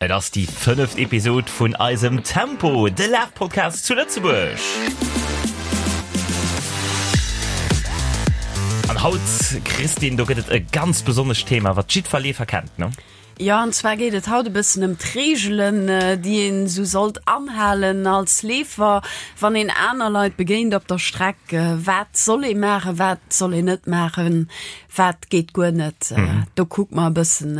Et ass déi fënneft Episod vun eisem Tempo, de Lafpodcast zu Lëtzebuerg. An haut, Christine, do gëtt et e ganz besonnescht Thema, wat jiddwer Leefer kennt, ne? Jo, an zwar geet et haut e bëssen ëm d'Reegelen, déi een esou sollt anhalen als Leefer, wann een aner Leit begéint op der Streck. Wat soll ee maachen, wat soll een net maachen, wat geet guer net? Do kucke mer e bëssen,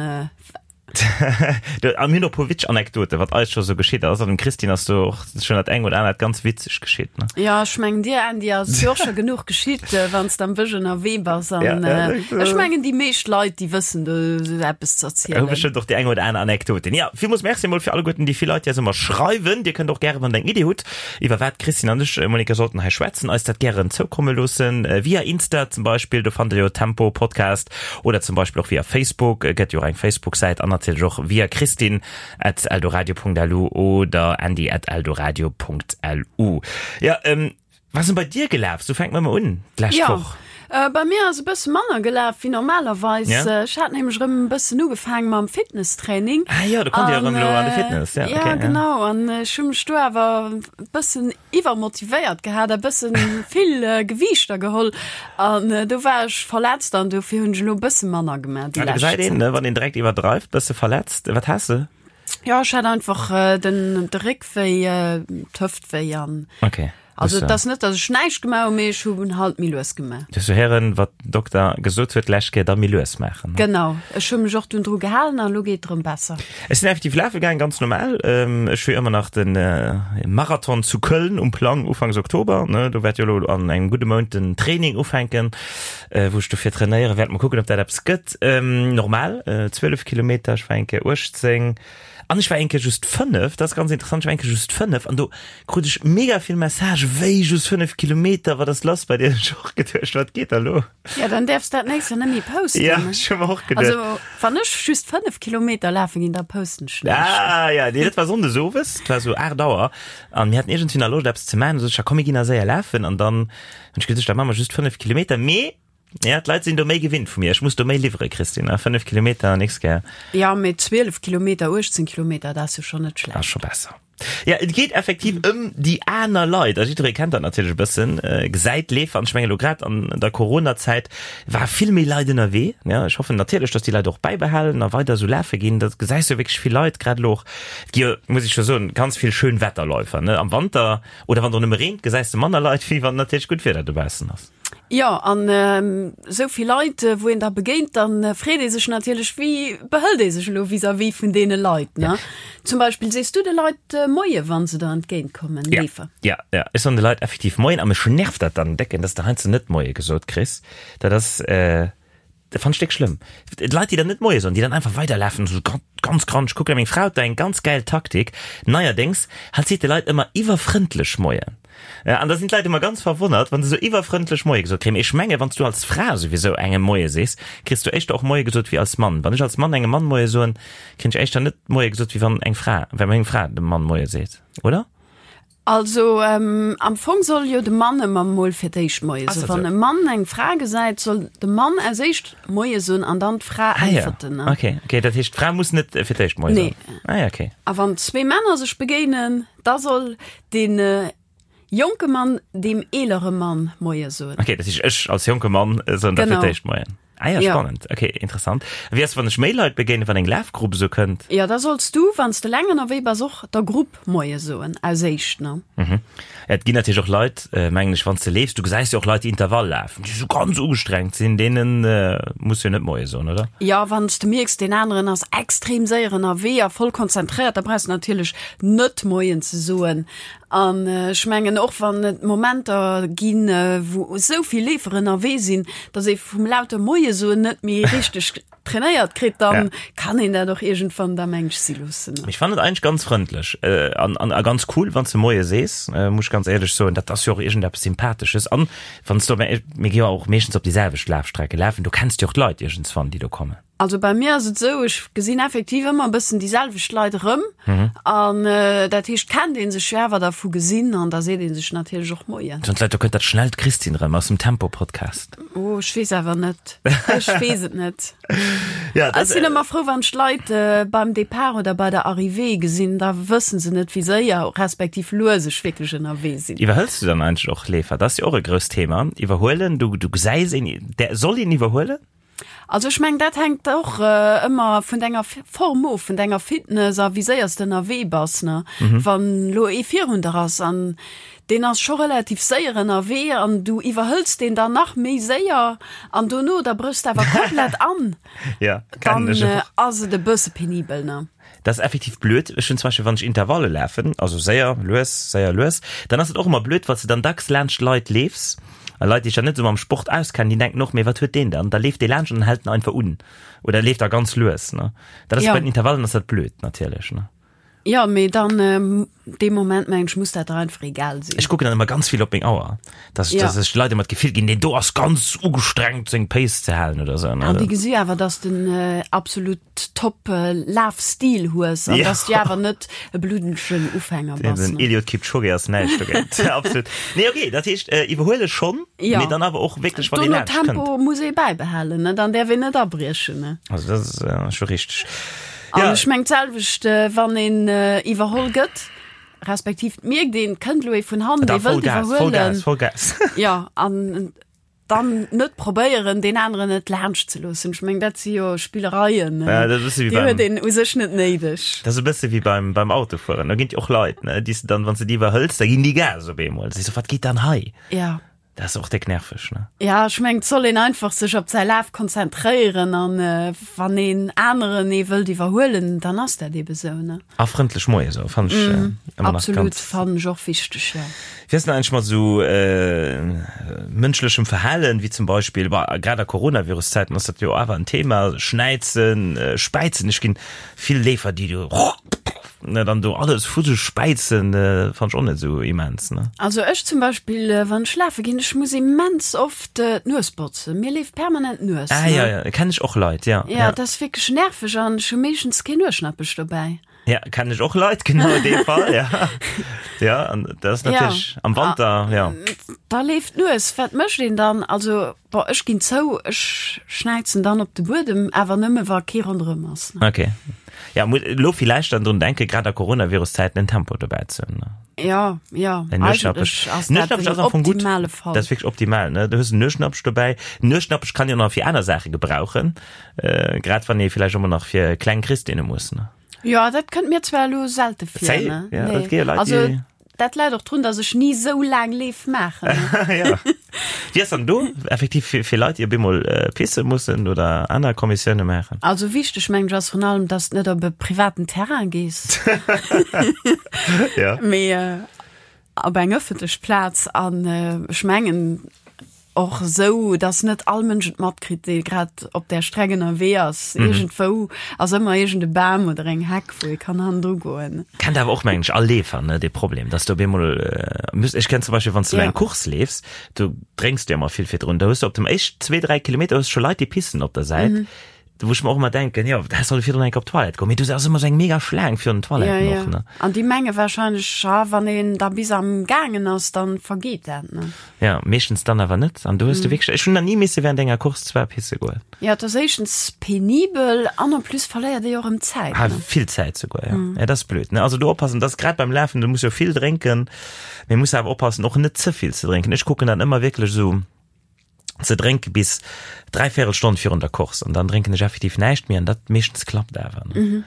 A mir hunn och e puer witzeg Anekdoten, wat eis scho sou geschitt ass. An dem Christine ass do och schonn dat eng oder anert ganz witzeg geschitt, ne? Jo, ech mengen dir, Andy, ass jo och scho genuch geschitt, wann s de am Bësch ënnerwee bass. An ech mengen, déi meescht Leit, déi wëssen do sou eppes ze erzielen. Hu bestëmmt och déi eng oder aner Anekdoten. Jo, villmools Merci emol fir alleguerten déi vill Leit, déi eis ëmmer schreiwen. Dir kënnt och gären, wann der eng Iddi hutt, iwwer wat d'Christine an ech, Monica, sollten hei schwätzen, eis dat gären zoukomme loossen. Via Insta zum Beispill, do fannt der jo Tempo Podcast. Oder zum Beispill och via Facebook, et gëtt jo och eng Facebook-Säit, an natierlech och via christine at eldoradio.lu oder andy at eldoradio.lu. Ja, ähm, was ass denn bei dir gelaf? Sou fänke mer mol un, d'lescht Ja, Woch. äh, bei mir ass e bësse manner gelaf wéi normalerweis. Ja. Äh, Ech hat nämlech erëm e bëssen ugefaange mam Fitnesstraining. Ah jo, do konnt Dir An, erëm elo an de äh, Fitness. Ja, ja, okay, ja. genau. An ech hu mech do awer e bëssen iwwermotivéiert gehat a bëssen vill Gewiichter geholl an do war ech verletzt an dofir hunn ech elo e bësse manner gemaach déi Ah, do lescht gesäit een, Zäit. ne, wann een direkt iwwerdreift, bësse verletzt. Wat has de? Jo, ech hat einfach den de Réck wéi, d'Hëft wéi an Okay. also et ass net, datt ech näischt gemaach hunn, mee ech hunn halt méi lues gemaach. Du hues héieren, wat den Dokter gesot huet d'lescht Kéier, da méi lues maachen, ne? Genau, ech hu mech och dunn dru gehalen an elo geet et erëm besser. Ech sinn effektiv lafe gaang, ganz normal. Ech hu jo ëmmer nach de Marathon zu Köln um Plang, ufanks Oktober. Do wäert jo elo an engem gudde Mount den Training ufänken, wou ech dofir trainéiere wäert. Mol kucken, ob dat eppes gëtt. Normal 12 Kilometer, ech war eng Kéier 18 an ech war eng Kéier just 5. Dat ass ganz interessant, ech war eng Kéier just 5 an do krut ech mega vill Messagë, wéi just 5 Kilometer, wat ass lass bei dir? Ech hu och geduecht, wat geet da lo? Ja, dann däerfs dat nächst Joer net méi posten. Ja, ech hu mer och geduecht. Also, wann ech just 5 Kilometer lafe ginn, da posten ech näischt. Ah, ja, nee, dat war Sonndes owes, et war sou 8 Auer an mir haten iergendwéi nach Loscht eppes ze maachen. Du sot ech, ja komm, mir ginn nach séier lafen an dann hunn ech geduecht, da maache mer just 5 Kilometer. Mee, ja, d'Leit sinn do méi gewinnt vu mir, ech muss do méi liwwere, Christine, 5 Kilometer, nächst Kéier. Ja, mee 12 Kilometer, 18 Kilometer, dat ass jo schonn net schlecht. Ass scho besser. Ja, et geet effektiv ëm déi aner Leit. A jiddweree kennt dat natierlech e bëssen, gesäit Leefer. An ech mengen elo grad an der Coronazäit war vill méi Leit ënnerwee. Ja, ech hoffen natierlech, datt déi Leit och bäibehalen a weider esou lafe ginn. Da gesäis du wierklech vill Leit, grad elo och, et gi jo, muss ech jo soen, ganz vill Schönwetterläufer, ne, am Wanter oder wann et och nëmme reent, gesäis de manner Leit, wéi wann natierlech gutt Wieder dobaussen ass. Jo, an esou vill Leit, wou een da begéint, da freet ee sech natierlech, wéi behëlt ee sech elo vis-à-vis vun deene Leit, ne? Zum Beispill, sees du de Leit Moie wa se der entgéint kommen, Ja, Leefer? ja, ja. Ech soen de Leit effektiv Moien a mech nervt dat dann décken, dass de heiansdo net Moie gesot kriss. Dat ass, Dat fannt ech déck schlëmm. D'Leit, déi dann net Moie soen, déi dann einfach weiderlafen, esou ganz grandeg kucken. Meng Fra huet da eng ganz gäil Taktik neierdéngs, hatt seet de Leit ëmmer iwwerfrëndlech Moien. An da sinn d'Leit ëmmer ganz verwonnert, wa se esou iwwerfrëndlech Moie gesot kréien. Mee ech menge wann s du als Fra souwisou engem Moie sees, kriss du éischter och Moie gesot wéi als Mann. Wann ech als Mann engem Mann Moie soen, kréien ech éischter net Moie gesot, wéi wann eng Fra, wa meng Fra dem Mann Moie seet, oder? Also am Fong soll jo de Mann ëmmer mol fir d'éischt Moie soen. Wann e Mann eng Fra gesäit, soll de Mann als éischt Moie soen an dann d'Fra äntwerten. Ah ja, okay, okay, dat heescht d'Fra muss net fir d'éischt Moie soen? Nee. Ah ja, okay. A wann zwee Männer sech begéinen, da soll dee jonke Mann deem eelere Mann Moie soen. Okay, dat heescht ech als jonke Mann soen da fir d'éischt Moien. Ah ja, spannend. Okay, interessant. Wéi ass, wann ech méi Leit begéinen, wann eng Lafgrupp esou kënnt? Jo, da solls du, wann s de eleng ënnerwee bass, och der Grupp Moie soen, aus éischt, ne? Mhm. Et ginn natierlech och Leit, mengen ech, wann s de leefs, du gesäis jo och Leit, déi Intervall lafen, déi esou ganz ugestrengt sinn, deene muss jo net Moie soen, oder? Jo, wann s de mierks, deen aneren ass extrem séier ënnerwee a voll konzentréiert, da brauchs de natierlech net Moien ze soen. An ech mengen och wann et Momenter ginn, wou esou vill Leefer ënnerwee sinn, datt ee vum laute Moie soen net méi richteg trainéiert kritt, dann kann een dat och iergendwann da mensch si loossen. Ech fannen et eigentlech ganz frëndlech an an a ganz cool, wann s de Moie sees, muss ech ganz éierlech soen. Dat ass jo och iergendeppes Sympathesches. An wann s de, mir gi jo och meeschtens op déi selwecht Lafstrecke lafen, do kenns de jo och d'Leit iergendswann, déi do kommen. Also bei mir ass et esou, ech gesinn effektiv ëmmer e bëssen déi selwecht Leit erëm. An dat heescht, kennt ee sech jo awer da vu gesinn an da seet ee sech natierlech och Moien. Soen d'Leit, do kënnt dat schnellt Christine erëm aus dem Tempo-Podcast. Oh, ech weess awer net. Ech weess et net. Ja, Ech sinn ëmmer frou, wann ech d'Leit beim Depart oder bei der Arrivée gesinn, da wëssen se net, wéi séier respektiv lues ech wierklech ënnerwee sinn. Iwwerhëls du dann eigentlech och Leefer? Dat ass jo och e grousst Thema, iwwerhuelen. Du, du gesäis een, där, soll een iwwerhuelen? Also ech mengen, dat hänkt och ëmmer vun denger Form of, vun denger Fitness a wéi séier s de ënnerwee bass, ne. Wann elo ee virun der ass an deen ass scho relativ séier ënnerwee an du iwwerhëls deen dann nach méi séier an dono da bréchs de awer komplett an, dann ass et e bësse penibel, ne. Dat ass effektiv blöd. Ech hunn zum Beispill, wann ech Intervalle lafen, also séier, lues, séier, lues, dann ass et och ëmmer blöd, well s de dann dacks laanscht Leit leefs a Leit, déi sech dann net esou mam Sport auskennen, déi denken och, mee wat huet deen dann? Da leeft dee laanscht an dann hält en einfach un oder leeft da ganz lues, ne? Dat ass Ja. bei den Intervallen ass dat blöd natierlech, ne? Jo, mee dann dee Moment mengen ech, muss dat der einfach egal sinn. Ech kucken dann ëmmer ganz vill op meng Auer, dass Ja. dass ech de Leit ëmmer d'Gefill ginn, deen do ass ganz ugestrengt seng Pace ze halen oder esou, ne? An déi gesi awer, dass de en absolut top Lafstil hues an Ja. dass du awer net e bluddegen Ufänger bass. Den ne? Eliud Kipchoge ass näischt dogéint. Absolut. Nee, okay, dat heescht, äh, iwwerhuele schonn, Ja. mee dann awer och wierklech, wann ee Dono laanscht kënnt. Tempo muss ee bäibehalen, ne? Dann däerf een net abriechen, ne? Also dat ass äh, scho richteg. An Ja. ech meng d'selwecht, wann een iwwerholl gëtt, respektiv et mierkt een, et kënnt elo ee vun hannen, Da dee wëllt Vollgas, Vollgas, iwwerhuelen. Vollgas. Jo, an dann net probéieren, deen aneren net laanscht ze loossen. Ech meng, dat si jo Spillereien, Ja, dat ass e bësse wéi déi huet beim, een u sech net néideg. dat ass e bësse wéi beim, beim Autofueren. Do ginn et jo och Leit, ne, déi s de dann, wann s de déi iwwerhëls, da ginn déi Gas op eemol. Da sees du, wat geet dann hei? Ja. Dat ass och déck nerveg, ne? Ja, ech mengen, et soll een einfach sech op säi Laf konzentréieren an wann een aneren ee wëllt iwwerhuelen, dann ass dat ebe sou, ne? A frëndlech Moie soen, fannen ech ëmmer nach Absolut, ganz. fannen ech och wichteg, jo. Wéi ass denn eigentlech mat esou mënschlechem Verhalen, wéi zum Beispill, bah, grad a Coronavirus-Zäiten ass dat jo awer en Thema, Schnäizen, Späizen, ech ginn vill Leefer, déi do Ne, dann do alles vu sech späizen, fannt ech och net esou immens, ne? Also ech zum Beispill, wann ech lafe ginn, ech muss immens oft d'Nues botzen. Mir leeft permanent d'Nues. Ah ja, ja, kenn ech och Leit, ja. Ja, dat ass wierklech nerveg an ech hu meeschtens keen Nueschnappech dobäi. Ja, kenn ech och Leit, genau dee Fall, ja. Ja, an dat ass natierlech am Wanter, ja. Da leeft d'Nues, wat mécht een dann? Also, bon, ech ginn zou, ech schnäizen dann op de Buedem, awer nëmme wa kee ronderëm ass. Okay. Ja, muss elo villäicht dann drun denken, grad a Coronavirus-Zäiten en Tempo dobäi ze hunn, ne? Ja, ja, En eigentlech Nueschnappech. ass dat Nueschnappech den ass am Fong gutt. optimale Fall. Dat ass wierklech optimal, ne? Du hues en Nueschnappech dobäi. Nueschnappech kann jo nach fir aner Saache gebrauchen, äh, grad wann ee villäicht och mol nach fir kleng Christine muss, ne? Jo, dat kënnt mir zwar elo selte vir, Zéi? ne? Ja, Nee. et gi jo Leit, Also, déi. Dat läit och drun, dass ech ni sou laang Leef maachen. Ja. Wéi ass dann do effektiv fir, fir Leit, déi op eemol pisse mussen oder aner Kommissioune maachen? Also wichteg mengen ech ass vrun allem, dass de net op e privaten Terrain gees, Ja. mee op eng ëffentlech Plaz. An ech mengen Och esou, dass net all Mënsch et matkritt, dee grad op där Streck ënnerwee ass. Iergendwou ass ëmmer iergend e Bam oder eng Heck, wou ee kann hannendru goen. Kennt awer och, mengen ech, all Leefer, ne, dee Problem, dass du op eemol muss, ech kenn zum Beispill, wann s du Ja. eng Course leefs, du drénks du jo ëmmer vill virdrun, da hues du op dem éischt zwee, dräi Kilometer hues du scho Leit, déi pissen op der Säit. Wou ech mer och ëmmer denken, jo, häss solle virdrun eng Kéier op d'Toilette goen, mee do ass ëmmer esou eng mega Schlaang virun den Toiletten Ja, ja. och, ne? An déi menge wahrscheinlech, ha wann een da bis am gaangen ass, dann vergeet dat, ne? Ja, meeschtens dann awer net. An do hues du wierklech, ech hunn nach ni misse während enger Course zwar pisse goen. Ja, et ass éischtens penibel an en plus verléiert ee jo och erëm Zäit, Ah, ne? vill Zäit souguer, ja. Ja, dat ass blöd, ne? Also do oppassen, dat ass grad beim Lafen, du muss jo vill drénken, mee muss awer oppassen, och net ze vill ze drénken. Ech kucken dann ëmmer wierklech esou, ze drénke bis dräivéierel Stonn virun der Course an dann drénken ech effektiv näischt méi an dat meeschtens klappt awer. Ne? Mhm.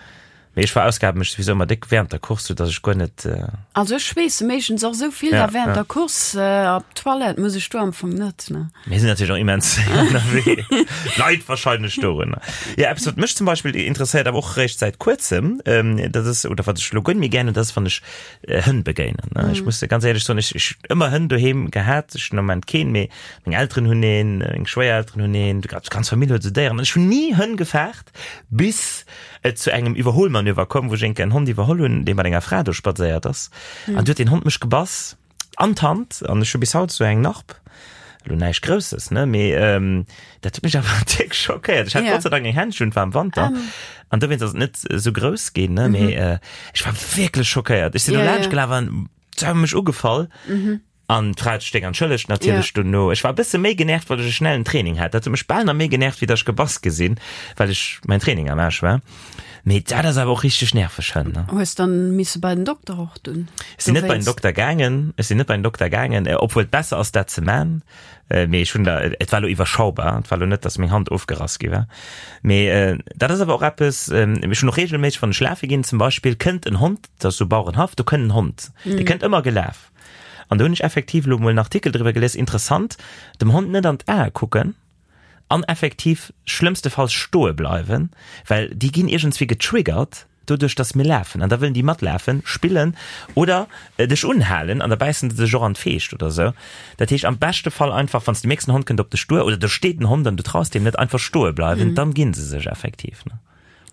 Mee ech verausgabe mech souwisou ëmmer déck während der Course, sou dass ech guer net. Äh also ech schweesse meeschtens och sou vill ja, da während ja. der Course äh, op d'Toilette muss ech do am Fong net. Ne? Mir sinn natierlech och immens ënnerwee. Leit wahrscheinlech dorunner. Ja, eppes wat mech zum Beispill interesséiert, awer och réischt säit kuerzem, ähm, dat ass, oder wat ech lo guer net méi gär hunn, dat ass wann ech Hënn begéinen. Mm. Ech muss ganz éierlech soen, ech, ech ëmmer Hënn doheem gehat, ech hunn am Moment keen, mee meng Elteren hunn een, meng Schwéierelteren hunn een, déi ganz Famill huet esou Déieren. An ech hunn ni Hënn gefaart, bis et zu engem Iwwerholmanöver koum, wou ech eng Kéier en Hond iwwerholl hunn, dee mat enger Fra do spadséiert ass. Mm. An du huet den Hond mech gebass an d'Hand an ech hu bis haut esou eng Narb. Elo näischt Grousses, ne, mee dat huet mech awer déck schockéiert. Ech hat Gott sei Dank eng Händschen, et war am Wanter an dowéinst ass et net esou grouss ginn, ne, mee ech war wierklech schockéiert. Ech sinn do laanscht gelaf an se hu mech ugefall an d'Fra huet sech déck entschëllegt natierlech dono. Ech war e bësse méi genervt, well ech e schnellen Training hat. Dat huet mech bal nach méi genervt, wéi datt ech gebass gi sinn, well ech mäin Training am Aarsch war. Mee dat ass awer och richteg nerveg, hënn, ne? Hues dann misse bei den Dokter och dunn? Ech sinn net bei den Dokter gaangen, ech sinn net bei den Dokter gaangen, obwuel et besser ass dat ze man, mee ech hunn da, et war lo iwwerschaubar, et war lo net, dass meng Hand ofgerass gi war. Mee dat ass awer och eppes, ech hunn och regelméisseg, wann ech lafe ginn zum Beispill, kënnt en Hond, dat ass sou Bauerenhaff, do kënnt en Hond, dee kënnt ëmmer gelaf. An do hunn ech effektiv lo mol en Artikel driwwer gelies, interessant, dem Hond net an d'Ae kucken, An effektiv schlëmmstefalls stoe bleiwen, well déi ginn iergendswéi getriggert doduerch, dass mir lafen. An da wëllen déi matlafen, spillen oder dech unhalen an da bäissen se dech och an d'Feescht oder sou. Dat heescht am beschte Fall einfach, wann s de mierks, en Hond kënnt op dech duer oder do steet en Hond an du traus deem net, einfach stoe bleiwen, dann gi se sech effektiv.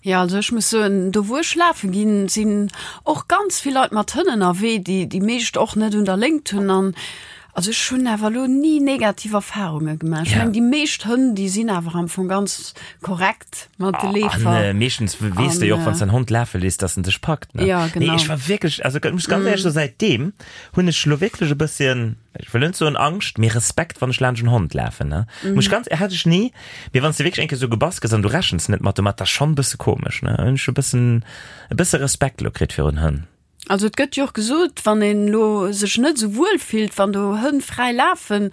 Jo, also ech muss soen, do wou ech lafe ginn, sinn och ganz vill Leit mat Hënn ënnerwee, déi déi meescht och net un der Léngt hunn. An also ech hunn awer elo ni negativ Erfarunge gemaach. Ech mengen, déi meescht Hënn, déi sinn awer am Fong ganz korrekt mat de Leefer. An meeschtens weess de jo och, wann s de en Hond lafe léiss, dass en dech packt, ne? Jo, genau. Nee, ech war wierklech, also ech muss ganz éierlech soen, säitdeem hunn ech elo wierklech e bësschen, ech wëll net soen Angscht, mee Respekt, wann ech laanscht en Hond lafen, ne? Muss ech ganz, hat ech ni, mee wann s de wierklech eng Kéier esou gebass gëss an du rechens net mat domat, dat ass schonn e bësse komesch, ne? Hunn ech e bëssen, e bësse Respekt elo kritt virun Hënn. Also et gëtt jo och gesot, wann een elo sech net esou wuel fillt, wann do Hënn fräi lafen,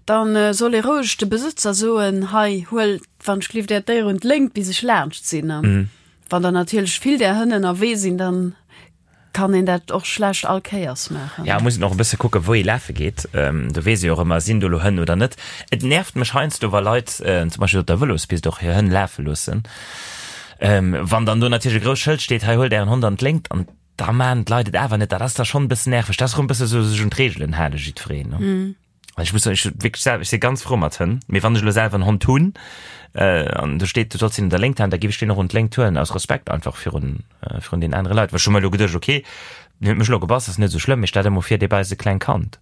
dann soll ee roueg de Besëtzer soen, hei huel wann ech gelift äert Déier un d'Léngt bis ech laanscht sinn. Wann der natierlech vill där Hënn ënnerwee sinn, dann kann een dat och schlecht all Kéiers maachen. Ja, muss een och e bësse kucken, wou ee lafe geet. Do weess ee jo och ëmmer, sinn do elo Hënn oder net. Et nervt mech heiansdo, wa Leit zum Beispill op der Vëlospist och hir Hënn lafe loossen. Wann dann do natierlech e grousst Schëld steet, hei huelt ären Hond an d'Léngt, an da maachen d'Leit et awer net. Dat ass da schonn e bëssen nerveg. Dat ass erëm e bësse sou sech un d'Reegelen hale jiddwereen, ne? Ech muss soen, ech hu wierklech selwer, ech si ganz frou mat Hënn, mee wann ech elo selwer en Hond hunn an do steet, du solls hien un der Léngt halen, da géif ech deen och un d'Léngt huelen, aus Respekt einfach virun, virun den anere Leit. Well ech hu mer elo geduecht, okay, deen huet mech elo gebass, ass net esou schlëmm, mee stell der mol vir, dee bäisst e klengt Kand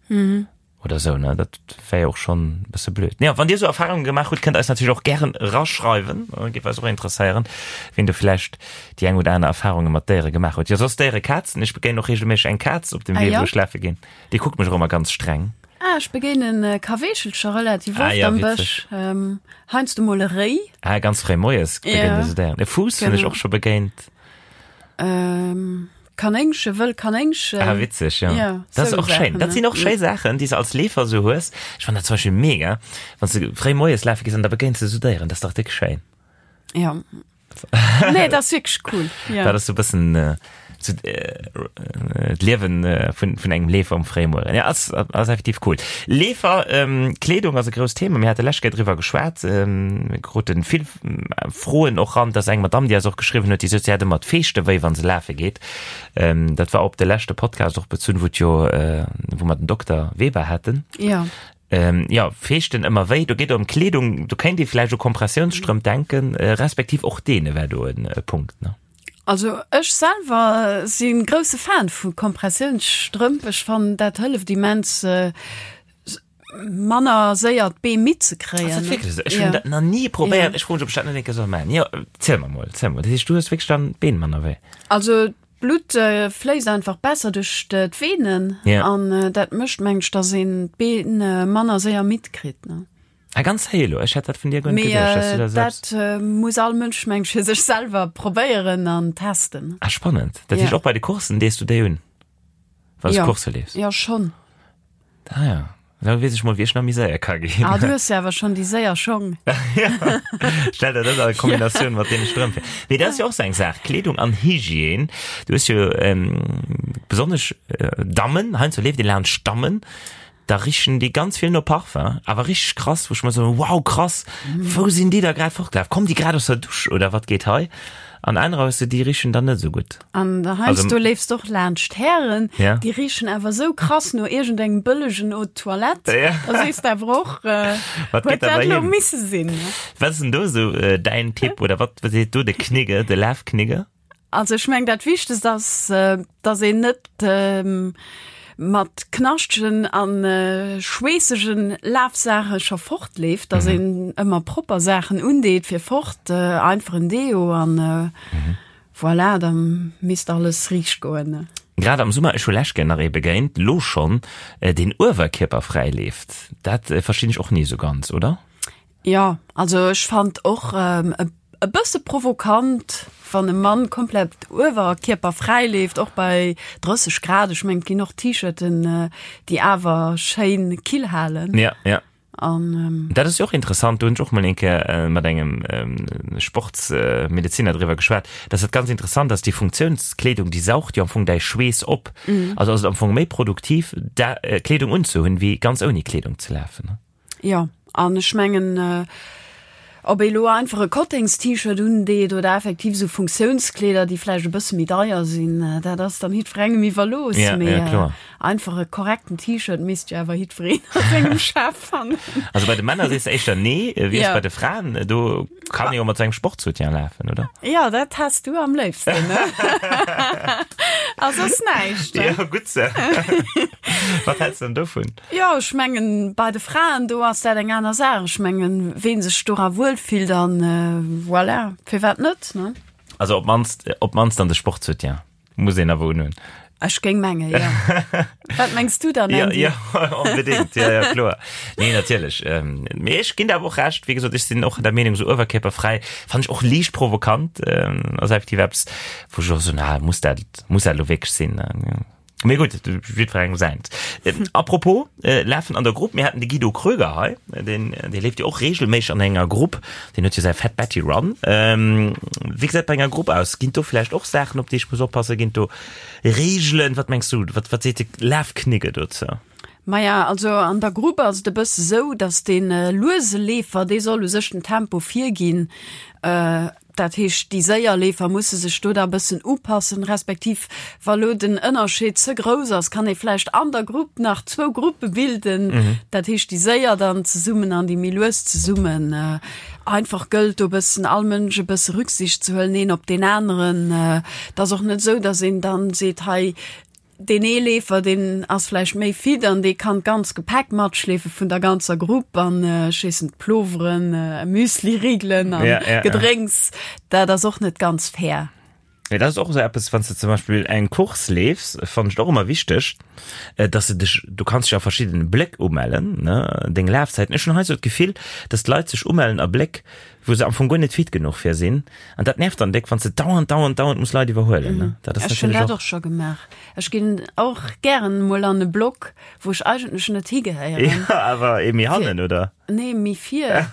oder esou, ne, dat wär jo och schonn e bësse blöd. Jo, wann Dir esou Erfarunge gemaach hutt, kënnt eis natierlech och gären eraschreiwen, géif eis och interesséieren, wien do vläicht déi eng oder aner Erfarunge mat Déiere gemaach huet. Jo, soss Déiere, Kazen, ech begéinen och reegelméisseg eng Kaz op dem Wee, wou ech lafe ginn. Déi kuckt mech och ëmmer ganz streng. Ah, ech begéinen Kaweechelcher relativ Ah oft ja, am witzeg. Bësch. Ähm, heiansdo mol e Réi. Ah, ganz fréi moies begéint Ja. se der. E Fuuss hunn ech Genau. och scho begéint. Ähm, Kanéngche, wëll Kanéngchen. Ah, witzeg, ja. Ja, Dat ass sou och schéin. Saachen, Dat ne? sinn och schéi Saachen, déi s de als Leefer sou hues. Ech fannen dat zum Beispill mega, wann s de fréi moies lafe gees an da begéins de sou Déieren. Dat ass dach déck schéin. Ja. Nee, dat ass wierklech cool. Ja. Dat ass sou bëssen äh, so, äh, d'Liewen äh, vun, vun engem Leefer um Fréimueren. Ja, ass, ass effektiv cool. Leefer, ähm, Kleedung ass e grousst Thema. Mir hate lescht Kéier driwwer geschwat. Ähm, mir kruten vill äh, Froen och ran, dass eng Madame, déi eis och geschriwwen huet, déi sot, si hätt ëmmer d'Feeschte wéi, wann se lafe geet. Ähm, dat war op de leschte Podcast och bezunn, wou et jo, äh, wou mer den Dokter Weber haten. Ja. Ähm, jo, Feeschten ëmmer wéi, do geet et ëm Kleedung, do kéint ee vläicht u Kompressiounsstrëmp denken, respektiv och deene wär do en Punkt, ne? Also ech selwer si grousse Fan vu Kompressiounsstrëmp. Ech fannen dat hëlleft immens manner séier d'Bee midd ze kréien. Ass dat wierklech esou? Ech hunn dat nach ni probéiert. Ech froe mech, ob ech dat net eng Kéier soll maachen. Jo, ziel mer mol, ziel mol. Dat heescht, du hues wierklech dann d'Been manner wéi? Also D'Blutt fléisst einfach besser duerch d'Venen Ja. an dat mécht meng ech, dass een d'Been manner séier midd kritt ne. Ah, ganz héi elo, ech hätt dat vun dir guer net Mee geduecht, dass du da selbst. dat muss all Mënsch meng ech fir sech selwer probéieren an testen. Ah, spannend. Dat heescht Ja. och bei de Courssen dees du déi un, wann s du Ja. Coursse leefs? Ja schonn. Ah ja, da weess ech mol wéi ech nach méi séier ka ginn. Ah, du hues jo awer schonn déi séier Schong. Ja, stell der dat a Kombinatioun mat deene Strëmp vir. Mee dat ass jo och sou eng Saach, Kleedung an Hygiène. Du hues jo besonnesch Dammen, heiansdo leeft ee laanscht Dammen, da richen déi ganz vill no Parfum, awer richteg krass, wou ech mer soen, wow krass, wou sinn déi da grad fortgelaf? Kommen déi grad aus der Dusch oder wat geet hei? An anerer hues de, déi richen dann net esou gutt. An der heiansdo leefs de och laanscht Hären, Ja. déi richen awer esou krass no iergendengem bëllegen Eau de Toilette. Ja. Da sees de awer och, äh, Wat huet geet da dat bei elo him? misse sinn, ne? Wat ass denn do esou däin Tipp oder wat seet do de Knigge, de Lafknigge? Also ech meng dat Wichtegst ass, dass een net. mat knaschtegen an schweessegen Lafsaache scho fortleeft, dass een ëmmer propper Saachen undeet fir fort, einfach en Deo an voilà, da misst alles riicht goen. Grad am Summer, ech hu lech gär nach ee begéint, lo schonn, deen uewerkierperfräi leeft. Dat verstinn ech och ni esou ganz, oder? Jo, also ech fand och e bësse provokant, wann e Mann komplett uewerkierperfräi leeft, och bei 30 Grad. Ech mengen, et ginn och T-Shirten, déi awer schéin kill halen. Ja, ja. An. Dat ass jo och interessant, do hunn ech och mol eng Kéier mat engem Sportsmedezinner driwwer geschwat, dass dat ganz interessant ass, déi Funktiounskleedung, déi saugt jo am Fong däi Schweess op. Also ass et am Fong méi produktiv, da Kleedung unzehunn, wéi ganz ouni Kleedung ze lafen. Jo, an ech mengen, ob ee lo einfach e Kottengst-T-Shirt undeet oder effektiv esou Funktiounskleeder, déi vläicht e bësse méi deier sinn, dat ass dann jiddwerengem iwwerlooss. Ja, Mee ja, kloer. einfach e korrekten T-Shirt misst jo awer jiddwereen a sengem Schaf fannen. Also bei de Männer sees de éischter nee, wéi ass Ja. bei de Fraen? Do kann ee jo mat sengem Sportsoutien lafen, oder? Jo, dat häss du am léifsten, ne? A soss näischt, ne? Jo, gutt se. Wat häls de dann dovun? Jo, ech mengen, bei de Fraen, do ass dat eng aner Saach. Ech mengen, ween sech dora wuel fillt an voilà, firwat net, ne? Also op d'mannst, op d'mannst an de Sportsoutien muss een awer unhunn. Ech géing mengen, jo. Wat mengs du dann, Ja, Andy? ja, onbedéngt, ja, ja, kloer. Nee, natierlech. Mee ech ginn der awer och Recht, wéi gesot, ech sinn och der Meenung, esou uewerkierperfräi fannen ech och liicht provokant. Ass effektiv eppes, wou ech och soen, ah, muss dat, muss dat elo wierklech sinn? Mee gutt, jiddwerengem säint. A propos Lafen an der Grupp, mir haten de Guido Kröger hei, deen, dee leeft jo och reegelméisseg an enger Grupp, deen huet jo säi Fat Betty Run. Wéi gesäit bei enger Grupp aus? Ginn do vläicht och Saachen, op déi ech muss oppassen? Ginn do Reegelen? Wat mengs du, wat, wat seet de Lafknigge dozou? Maja, also an der Grupp ass et e bësse sou, datt dee luese Leefer, dee soll u sech den Tempo virginn. Dat heescht, déi séier Leefer musse sech do da e bëssen upassen, respektiv wa lo den Ënnerscheed ze grouss ass, kann ee vläicht an der Grupp nach zwou Gruppe bilden, dat heescht déi séier dann zesummen an déi méi lues zesummen. Einfach gëllt do e bëssen all Mënsch e bësse Rücksicht ze huelen, een op deen aneren. Et ass och net esou, datt een dann seet, hei Deen ee Leefer, deen ass vläicht méi fit an dee kann d'ganz Gepäck matschleefe vun der ganzer Grupp an ech weess net, Ploveren, Müsliriegelen an Ja, ja, ja. Gedrénks. Dat ass och net ganz fair. Nee, dat ass och esou eppes, wann s de zum Beispill eng Course leefs, fannen ech et och ëmmer wichteg, dass de dech, du kanns dech a verschiddene Bléck umellen, ne, deng Lafzäiten. Ech hunn hei esou d'Gefill, dass d'Leit sech umellen a Bléck, wou se am Fong guer net fit genuch fir sinn. An dat nervt dann déck, wann s de dauernd, dauernd, dauernd muss Leit iwwerhuelen, ne? Dat ass Ech hunn natierlech dat och. och scho gemaach. Ech ginn och gären mol an e Block, wou ech eigentlech net higehéieren. Ja, awer ee méi hannen, oder? Nee, méi vir.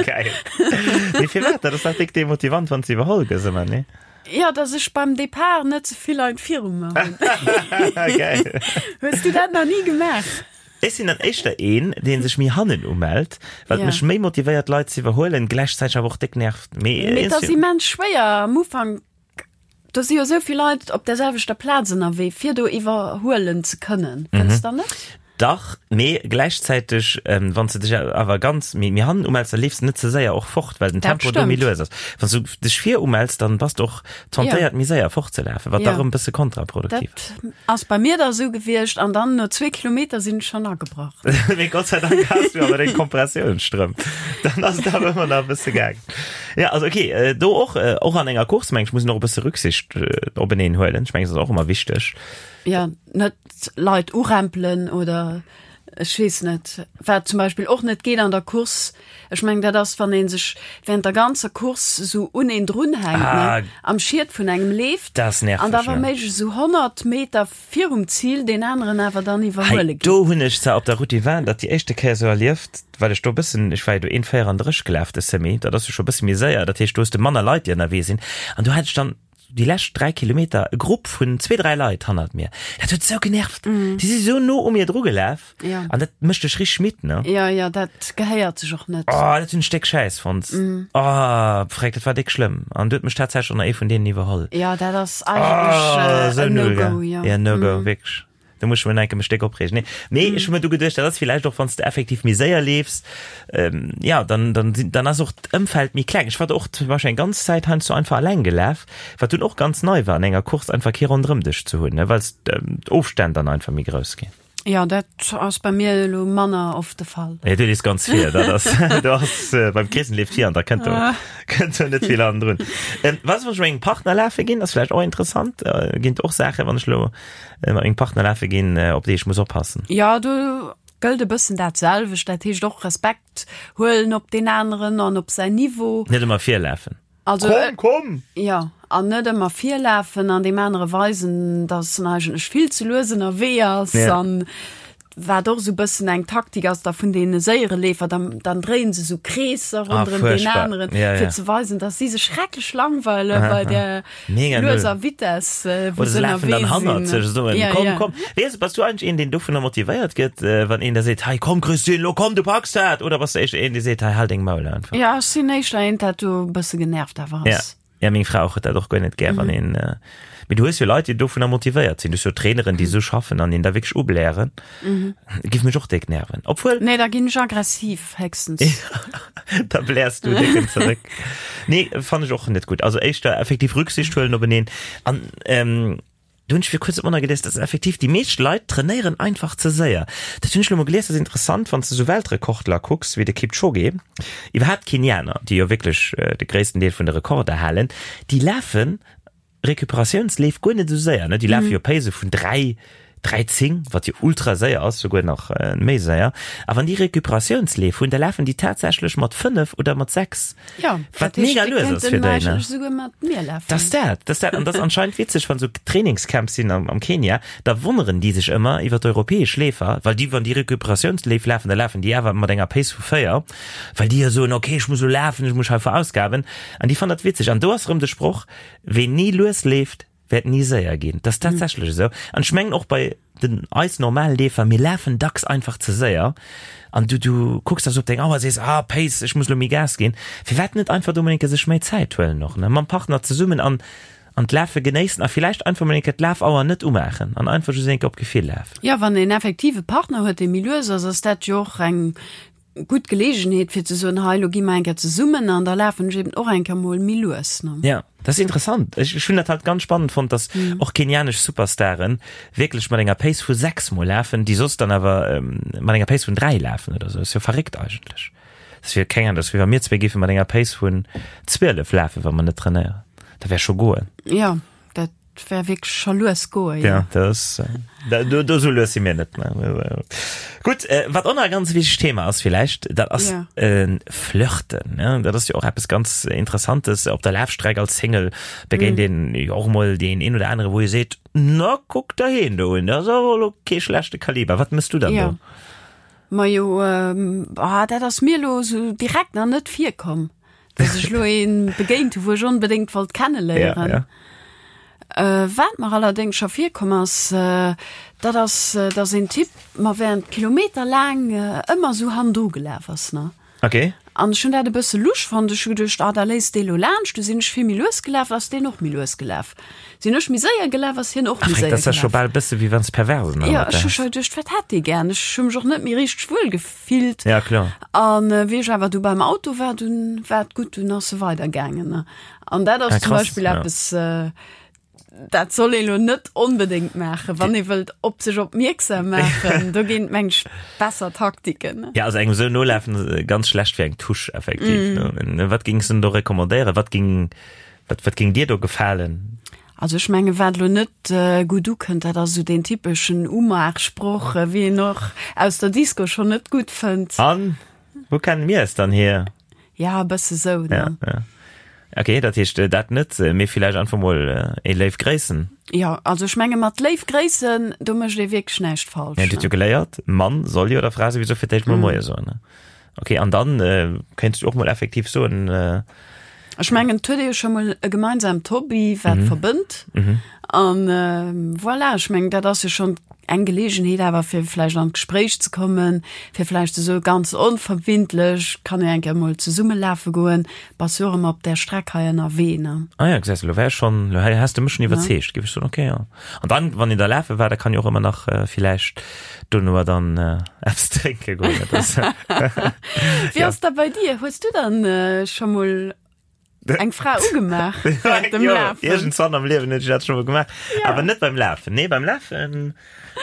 Geil. Mee firwat? Dat ass dach déck demotivant, wann s de iwwerholl gëss ëmmer, nee? Ja, dass ech beim Depart net ze vill Leit viru mer hunn. Geil. Hues du dat nach ni gemaach? Ech sinn dann éischter een, dee sech méi hannen umellt, wat mech méi motivéiert Leit ze iwwerhuelen, gläichzäiteg awer och déck nervt. Mee et ass immens schwéier am Ufank, do si jo esou vill Leit op der selwechter Plaz ënnerwee, fir do iwwerhuelen ze kënnen, fënns der net? Dach, mee gläichzäiteg, wann s de dech awer ganz méi hannen umells, da leefs de net ze séier och fort, well den Tempo do méi lues ass. Wann s du dech vir umells, dann bass de och tentéiert méi séier fortzelafen, wat da rëm e bësse kontraproduktiv ass. Dat ass bei mir da sou gewiescht an dann no zwee Kilometer sinn ech schonn agebrach. Mee Gott sei Dank has du awer deng Kompressiounsstrëmp. Dann ass et awer ëmmer nach e bësse gaangen. Ja, also okay, do och, och an enger Course, meng ech, muss een och e bësse Rücksicht openeen huelen. Ech mengen, dat ass och ëmmer wichteg. Ja, net Leit urempelen oder ech weess net, wat zum Beispill och net geet an der Course, ech mengen dat ass wann ee sech während der ganzer Course esou un een drunhänkt, ne, am Schiet vun engem leeft Dat ass nerveg, an da wa ne? méiglech esou 100 Meter virum Zil deen aneren awer dann Hei, iwwerhuele geet. do hunn ech zwar op der Route du Vin dat déi éischte Kéier esou erlieft, well ech do e bëssen, ech war jo do 1,34 gelaf de Semi, dat ass jo scho e bësse méi séier, dat heescht do hues de manner Leit déi ënnerwee sinn an do hat ech dann déi lescht 3 Kilometer e Grupp vun zwee, dräi Leit hannert mir. Dat huet sou genervt. Déi si sou no u mir dru gelaf. Ja. An dat mécht dech richteg midd, ne? Ja, ja, dat gehéiert sech och net. Oh, dat hunn ech déck schäiss fonnt. Oh, freck, dat war déck schlëmm. An du huet mech tatsächlech och nach ee vun deenen iwwerholl. Ja, dat ass eigentlech Oh, äh, sou en null, No-Go, gell? ja. Ja, No-Go, wierklech. Do muss ech mech nach eng Kéier mech déck opreegen. Nee, mee ech hu mir du geduecht, dat ass villäicht och, wann s de effektiv méi séier leefs, ähm, ja, dann, dann sinn, dann ass och d'Ëmfeld méi kleng. Ech war och zum Beispill eng ganz Zäit heiansdo einfach alleng gelaf, wat dunn och ganz nei war, an enger Course einfach kee ronderëm dech ze hunn, ne, well s d'Ofstänn dann einfach méi grouss ginn. Jo, dat ass bei mir elo manner oft de Fall. Nee, du leefs ganz vir, dat ass, du ass, beim Chris leeft vir an da kënnt do, kënnt do net vill hannendrun. Ähm, was, wann ech mat mengem Partner lafe ginn, ass vläicht och interessant, ginn et och Saachen, wann ech elo mat mengem Partner lafe ginn, op déi ech muss oppassen? Jo, do gëllt e bëssen dat selwecht, dat heescht och Respekt huelen op deen aneren an op säin Niveau. Net ëmmer virlafen. Also, komm, komm! Jo, an net ëmmer virlafen an deem anere weisen, dass en eigentlech vill ze lues ënnerwee ass. Ja. An wat och esou bëssen eng Taktik ass da vun deene séiere Leefer, dann, dann dréien se esou Kreesser ah, ronderëm deen aneren, ja, ja. fir ze weisen, dass si sech schrecklech langweile bei der Mega null. lueser Vitesse, äh, wou Oder se se lafen dann ënnerwee hannert sinn. sech soen, Ja, komm, ja. komm. Weess, bass du eigentlech een, deen dovunner motivéiert gëtt, äh, wann een da seet, hei komm Christine, lo komm, du packs dat? Oder bass du éischter een, dee seet, hei hal deng Maul einfach? Ja, ech sinn éischter eent, dat do e bësse genervt awer Ja. ass. Ja, meng Fra och huet dat och guer net gär, wann een, äh, mee du hues jo Leit, déi dovunner motivéiert sinn. Du hues jo Traineren, déi esou schaffen an een da wierklech ublären. Giff mech och déck nerven. Obwuel. Nee, da ginn ech aggressiv, héchstens. Da bläers du décken zeréck. Nee, fannen ech och net gutt. Also éischter effektiv Rücksicht huelen openeen. An ähm, do hunn ech fir kuerzem och nach gelies, dass effektiv déi meescht Leit trainéieren einfach ze séier. Dat hunn ech lo mol gelies, dat ass interessant, wann s de sou Weltrekordler kucks, wéi de Kipchoge, iwwerhaapt d'Kenianer, déi jo wierklech de gréissten Deel vun de Rekorder halen, déi lafen Recuperatiounsleef guer net esou séier, ne? Déi lafe jo Pace vun 3, 3, 10, wat jo ultra séier ass, souguer nach méi séier. A wann déi Recuperatiounsleef hunn, da lafen déi tatsächlech mat 5 oder mat 6, Ja, wat mega lues ass fir déi, ne? Souguer mat mir lafen. Dat ass dat, dat ass dat. An dat ass anscheinend witzeg, wann esou Trainingscamps sinn am, am Kenia, da wonneren déi sech ëmmer iwwer d'europäesch Leefer, well déi, wann déi Recuperatiounsleef lafen, da lafen déi awer mat enger Pace vu 4, well déi jo soen, okay, ech muss elo lafen, ech muss hei verausgaben. An déi fannen dat witzeg. An do ass erëm de Sproch, Ween ni lues leeft, wäert ni séier ginn. Dat ass tatsächlech esou. An ech mengen och bei den eis normal Leefer, mir lafen dacks einfach ze séier. An du, du kucks da sou op deng Auer a sees, ah Pace, ech muss elo méi Gas ginn. Firwat net einfach do mol eng Kéier sech méi Zäit huelen och, ne, mam Partner zesummen an, an d'Lafe genéissen a villäicht einfach mol eng Kéier d'Lafauer net umaachen an einfach just eng Kéier op Gefill lafen. Jo, wann een effektiv e Partner huet, dee méi lues ass, ass dat jo och eng gutt Geleegenheet fir ze soen, hei lo gi mer eng Kéier zesummen an da lafen ech eben och eng Kéier mol méi lues, ne? Ja, dat ass interessant. Ech, ech hunn dat halt ganz spannend fonnt, dass och kenianesch Superstaren wierklech mat enger Pace vu 6 mol lafen, déi soss dann awer mat enger Pace vun 3 lafen oder sou. Ass jo verréckt eigentlech. Dat ass wéi, keng Ahnung, dat ass wéi wa mir zwee géife mat enger Pace vun 12 lafen, wa mer net trainéieren. Dat wär scho goen. Ja, dat wär wierklech scho lues goe, jo. Ja, dat ass, do, do sou lues si mir net. Gutt, wat och nach e ganz wichtegt Thema ass villäicht, dat ass Ja. Flirten. Ne? Dat ass jo och eppes ganz Interessantes. Op der Lafstreck als Single begéint een jo och emol deen een oder anere, wou ee seet, Na, kuck der heen do un, dat ass awer elo kee schlechte Kaliber. Wat mëss du dann Ja. do? Majo, ah, dat ass mir elo sou direkt nach net virkomm. Dass ech lo een begéint hu, wou ech onbedéngt wollt kenneléieren. Ja, ja. Äh, wat mer allerdéngs scho virkomm ass, äh, dat ass, äh, dass een Typ mer während Kilometer laang äh, ëmmer sou hannendru gelaf ass, ne? Okay. An ech hunn dat e bësse lusch fonnt. Ech hu geduecht, ah, da léisst dee lo laanscht. Du sinn ech vill méi lues gelaf, ass deen och méi lues gelaf. Sinn ech méi séier gelaf, ass hien och méi Ach, séier dat ass ja scho gelaf. bal bësse wéi wann s perversen Ja, ech hu scho geduecht, wat hätt dee gär? Ech hu mech och net méi richteg wuel gefillt. Ja, kloer. An wéi ech awer du beim Auto war, dunn war et gutt, dunn ass e weidergaangen. An dat ass Ah, zum krass, Beispill ja. eppes, dat soll ee lo net onbedéngt maachen, wann ee wëllt op sech opmierksam maachen. Do ginn et, meng ech, besser Taktiken. Ja, also engem esou nolafen, ganz schlecht fir eng Touche effektiv. Mm. Wat géings du denn do recommandéieren? Wat ging, wat, wat ging dir do gefalen? Also ech menge wat lo net gutt ukënnt, dat ass esou deen typeschen Umaachsproch, wéi een och aus der Disco schonn net gutt fënnt. An wou kennen mir es dann hier? Ja, e bësse sou, ne? Ja, ja. Okay, dat heescht dat net, mee villäicht einfach mol ee léif Gréissen. Jo, also ech menge mat léif Gréissen, do mécht ee wierklech näischt falsch. Ja, dir hutt jo geléiert, Mann soll jo der Fra souwisou fir d'éischt mol Moie soen, ne? Okay, an dann kéints du och mol effektiv soen. Ech mengen, et huet ee jo scho mol e gemeinsamt Hobby, wat verbënnt. An voilà, ech mengen, dat ass jo schonn eng Geleegenheet awer fir vläicht an d'Gespréich ze kommen, fir vläicht esou ganz onverbindlech, kann ee eng Kéier mol zesumme lafe goen, bass jo och ëmmer op där Streck hei ënnerwee, ne? Ah ja, gesäis de, elo wär ech schonn, elo has de mech schonn iwwerzeegt, géif ech soen, okay, jo. An dann, wann een da lafe war, da kann jo och ëmmer nach villäicht dono dann eppes drénke goen, dat ass. Wéi ass dat bei dir? Hues du dann scho mol eng Fra ugemaach während dem Jo, Lafen? iergendzwann am Liewen hunn ech dat scho mol gemaach. Ja. Awer net beim Lafen. Nee, beim Lafen,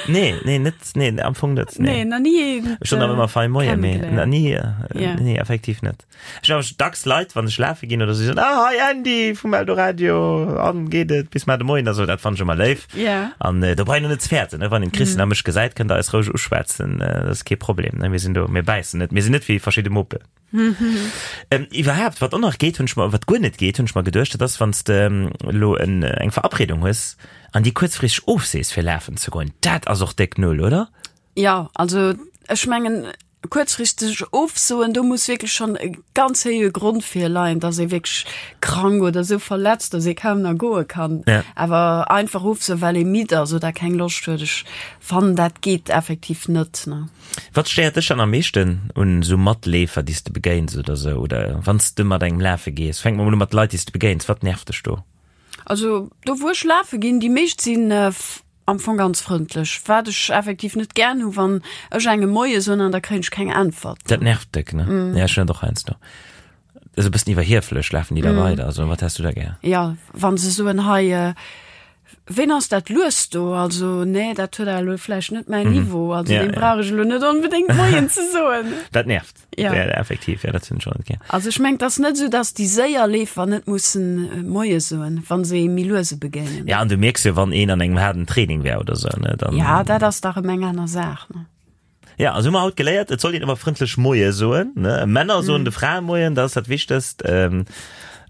nee, nee, net, nee, am Fong net, Nee, nee. nach ni een Ech hunn awer ëmmer fein Moie, mee kennengeléiert. na ni, Ja. nee, effektiv net. Ech hunn awer dacks Leit, wann ech lafe ginn oder sou, déi soen, ah, hi Andy vum Eldoradio, an geet et bis mar de Moien a sou. Dat fannen ech ëmmer léif. Ja. An do brauch een och net ze fäerten, ne? Wann een d'Christine a mech gesäit, kënnt der eis roueg uschwätzen, dat ass kee Problem, ne? Mir sinn do, mir bäissen net, mir sinn net wéi verschidde Muppen. Iwwerhaapt, wat och nach geet, hunn ech mer, wat guer net geet, hunn ech mer geduecht, dat ass, wann s de elo en, eng Verabredung hues an déi kuerzfristeg ofsees, fir lafen ze goen. Dat ass och déck Null, oder? Jo, also ech mengen, kuerzfristeg ofsoen, do muss wierklech schonn e ganz héije Grond virleien, dass ee wierklech krank oder esou verletzt, dass ee kaum nach goe kann. Ja. Awer einfach ofsoen, well ee midd ass oder keng Loscht huet, ech fannen, dat geet effektiv net, ne. Wat stéiert dech dann am meeschten un esou Matleefer, déi s de begéins oder esou? Oder wann s de mat engem lafe gees? Fänke mer mol u mat Leit, déi s de begéins. Wat nervt dech do? Also do wou ech lafe ginn, déi meescht sinn am Fong ganz frëndlech. Wat ech effektiv net gären hu wann ech engem Moie soen an da kréien ech keng Äntwert. Dat nervt déck, ne? Ja, ech hunn dat och heiansdo. Esou e bëssen iwwerhieflech lafen déi da weider. Also wat häss du da gär? Ja, wann se soen, hei Ween ass dat lues do? Also nee, dat huet awer elo vläicht net mäin Niveau. Also Ja, deem ja. brauch ech elo net onbedéngt Moien ze soen. Dat nervt. Ja. Ja, effektiv, ja, dat hunn ech och net gär. Also ech mengen, et ass net esou, datt déi séier Leefer net mussen Moie soen, wa se ee méi luese begéinen. Ja, an du mierks jo, wann een an engem haarden Training wär oder sou, ne, dann. Ja, dat ass dach erëm eng aner Saach, ne? Ja, also hu mer haut geléiert, et soll een ëmmer frëndlech Moie soen, ne? Männer soen de Frae Moien, dat ass dat Wichtegst. Ähm,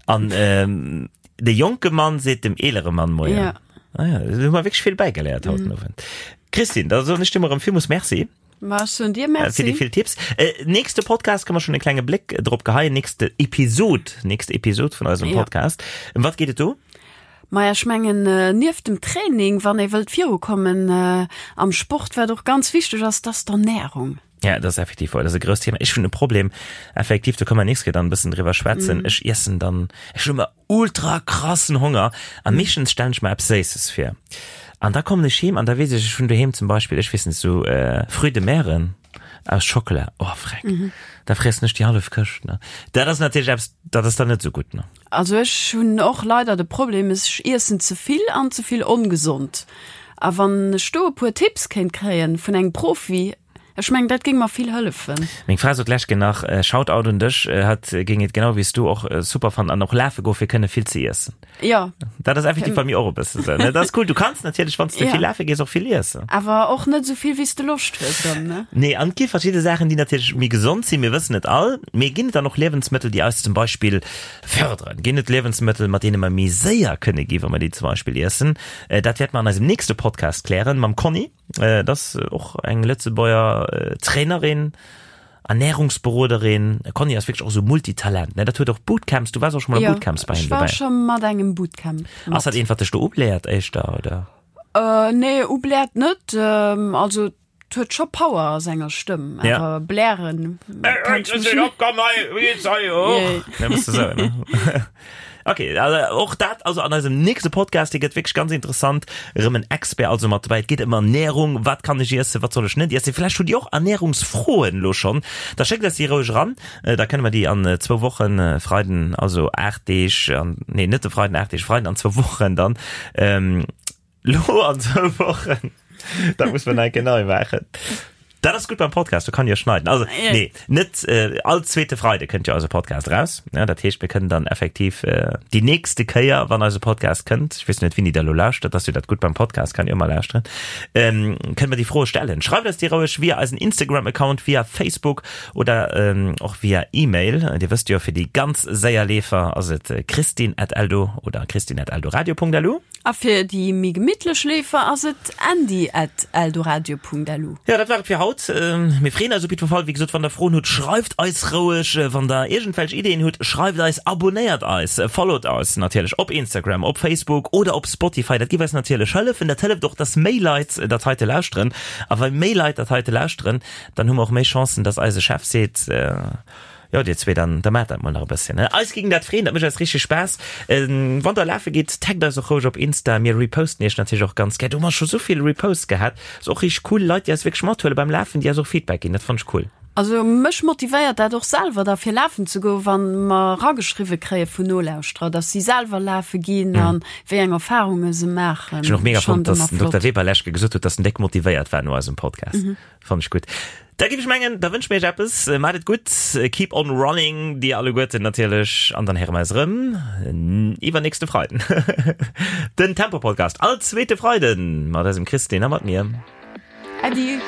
an ähm, de jonke Mann seet dem eelere Mann Moien. Ja. Ah ja, do hu mer wierklech vill bäigeléiert haut den Owend. Christine, da soen ech dir mol erëm villmools Merci. Ma ech soen dir Äh, Merci. fir déi vill Tipps. Äh, nächste Podcast kann mer schon e klenge Bléck drop geheien. Nächste Episod, nächste Episod vun eisem Ja. Podcast. Ëm wat geet et do? Maja, ech mengen, nieft dem Training, wann ee wëllt virukommen am Sport, wat och ganz wichteg ass, dat ass d'Ernärung. Ja, dat ass effektiv wouer. Dat ass e grousst Thema. Ech hunn e Problem, effektiv, do kënne mer nächst Kéier dann e bëssen driwwer schwätzen. Ech iessen dann, ech hunn ëmmer ultra krassen Honger a meeschtens stellen ech mer eppes Séisses vir. An da kommen ech heem an da weess ech, ech hunn doheem zum Beispill, ech weess net, esou Fruits de Meren aus Schockela, oh freck, da friessen ech déi hallef Këscht, ne. Dat ass natierlech eppes, dat ass dann net esou gutt, ne. Also ech hunn och leider de Problem, ech iessen ze vill an ze vill ongesond. A wann ech do e puer Tipps kéint kréien vun engem Profi, ech mengen dat géing mer vill hëllefen. Meng Fra sot d'lescht Kéier nach, Shoutout un dech, hatt géing et genau wéi s du och super fannen an och lafe goe fir kënne vill ze iessen. Jo. Dat ass effektiv bei mir och e bësse sou, ne? Dat ass cool, du kanns natierlech wann s de Ja. vill lafe gees och vill iessen. Awer och net esou vill wéi s de Loscht hues dann, ne? Nee, an et gi verschidde Saachen, déi natierlech méi gesond sinn, mir wëssen et all, mee ginn et dann och Liewensmëttel, déi eis zum Beispill Fërderen. Ginn et Liewensmëttel, mat deene mer méi séier kënne gi wa mer déi zum Beispill iessen? Dat wäerte mer an eisem nächste Podcast klären mam Conny. Dat ass och eng Lëtzebuerger Trainerin, Ernärungsberoderin. Conny ass wierklech och esou Multitalent, ne? Dat huet och Bootcamps, du waars och scho mol a Bootcamps bei him Jo, ech war dobäi. scho mat engem Bootcamp mat. Ass dat eent, wat dech do ubläert éischter, oder? Nee, ubläert net. Also 't huet scho Power a senger Stëmm, awer blären kann ech mech net. Ok, also och dat also an eisem nächste Podcast, dee gëtt wierklech ganz interessant, erëm en Expert also mat dobäi. Et geet ëm Ernährung, wat kann ech iessen, wat soll ech net iessen? Vläicht hutt Dir och Ernährungsfroen elo schonn, da schéckt eis déi roueg eran, da kënne mer déi an zwou Wochen, Freiden, also 8 Deeg, an, nee net de Freiden 8 Deeg, Freiden an zwou Wochen dann, Lo an zwou Wochen. Dat muss man enke nei maachen. Dat ass gutt beim Podcast, do kann jo schneiden. Also nee, net äh, all zweete Freide kënnt jo eise Podcast raus. Ja, dat heescht, mir kënnen dann effektiv äh, déi nächste Kéier, wann eise Podcast kënnt, ich weess net, wéini der lo lauschtert, dass jo dat gutt beim Podcast, kann jo ëmmer lauschteren, ähm, kënnen mer déi Froe stellen. Schreift eis déi roueg via eisen Instagram-Account, via Facebook oder ähm, och via E-Mail. Dir wësst jo, fir déi ganz séier Leefer ass et christine at eldo oder christine at eldoradio.lu. A fir déi méi gemittlech Leefer ass et andy at eldoradio.lu. Jo, dat war et fir haut. haut. Mir freeën eis op jiddwer Fall. Wéi gesot, wann der Froen hutt, schreift eis roueg. Wann der iergendwelch Ideeën hutt, schreift eis, abonnéiert eis, followt eis natierlech op Instagram, op Facebook oder op Spotify. Dat géif eis natierlech hëllefen. Dat hëlleft och, dass méi Leit dat heite lauschteren. A wa méi Leit dat heite lauschteren, dann hu mer och méi Chancen, dass eise Chef seet, Jo, dir zwee, dann da maacht dat mol nach e bësschen. Eis géing dat freeën, dat mécht eis richteg Spaass. Wann der lafe gitt, taggt eis och roueg op Insta, mir reposten iech natierlech och ganz gär. Do hu mer scho sou vill Reposts gehat, ass och richteg cool, Leit, déi eis wierklech mathuele beim Lafen, déi eis och Feedback ginn, dat fannen ech cool. Also mech motivéiert dat och selwer da fir lafen ze goen, wann mer erageschriwwe kréie vun Nolauschterer, dass si selwer lafe ginn an wéi eng Erfarunge se maachen. Ech hunn och mega fonnt, dass den Dokter Weber lescht Kéier gesot huet, dass en déck motivéiert war no eisem Podcast. Fannen ech gutt. Da giff ech mengen, da wënsche mir iech eppes. Maacht et gutt, keep on running, dir alleguerten natierlech, an dann héiere mer eis erëm iwwernächste Freiden. Den Tempo Podcast all zweete Freiden mat eisem Christine a mat mir. Äddi.